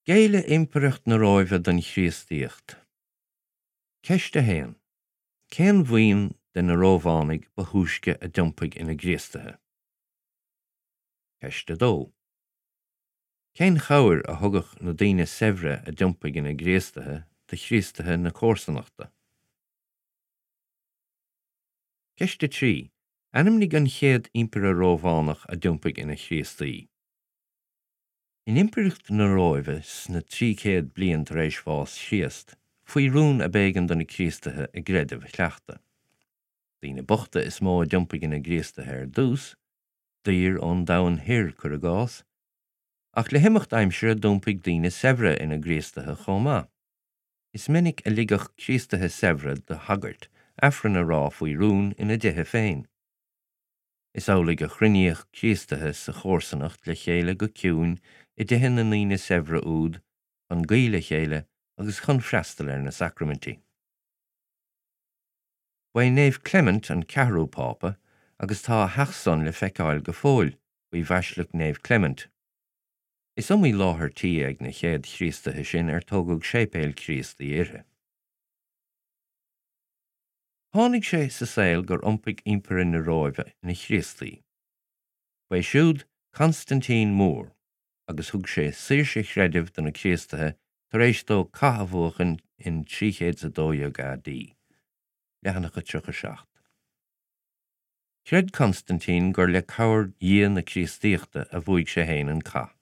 Géilleadh Impireacht na Róimhe don Chríostaíocht. Ceist 1. Cén bhuíon de na Rómhánaigh ba thúisce a d'iompaigh ina gCríostaithe? Ceist 2. Cén chabhair a thugadh na daoine saibhre a d'iompaigh ina gCríostaithe do Chríostaithe na comharsanachta? Ceist 3. Ainmnigh an chéad Impire Rómhánach a d'iompaigh ina Chríostaí. In Impireacht na Róimhe sna 300 bliain tar éis bhás Chríost, faoi rún ab éigean do na Críostaithe a gcreideamh a chleachtadh. Daoine bochta is mó a d'iompaigh ina gCríostaithe ar dtús, daoir ón domhan thoir, cuir i gcás, ach le himeacht aimsire d'iompaigh daoine saibhre ina gCríostaithe chomh maith. Is minic a ligeadh Críostaithe saibhre do shagairt Aifreann a rá faoi rún ina dtithe féin. Is amhlaidh a chruinníodh Críostaithe sa chomharsanacht le chéile go ciúin i dtithe na ndaoine saibhre úd chun guí le chéile agus chun freastal ar na sacraimintí. Ba é Naomh Clement an ceathrú Pápa agus tá a theach san le feiceáil go fóill faoi Bhaisleac Naomh Clement. Is iomaí láthair tí ag na chéad Chríostaithe sin ar tógadh séipéil Chríostaí uirthi. Tháinig sé sa saol gur iompaigh Impire na Róimhe ina Chríostaí. Ba é siúd Constantine Mór agus thug sé saoirse chreidimh do na Críostaithe tar éis dó cath a bhuachan in 312 AD. Leathanach 37. Chreid Constantine gur le cabhair Dhia na Críostaíochta a bhuaigh sé féin an cath.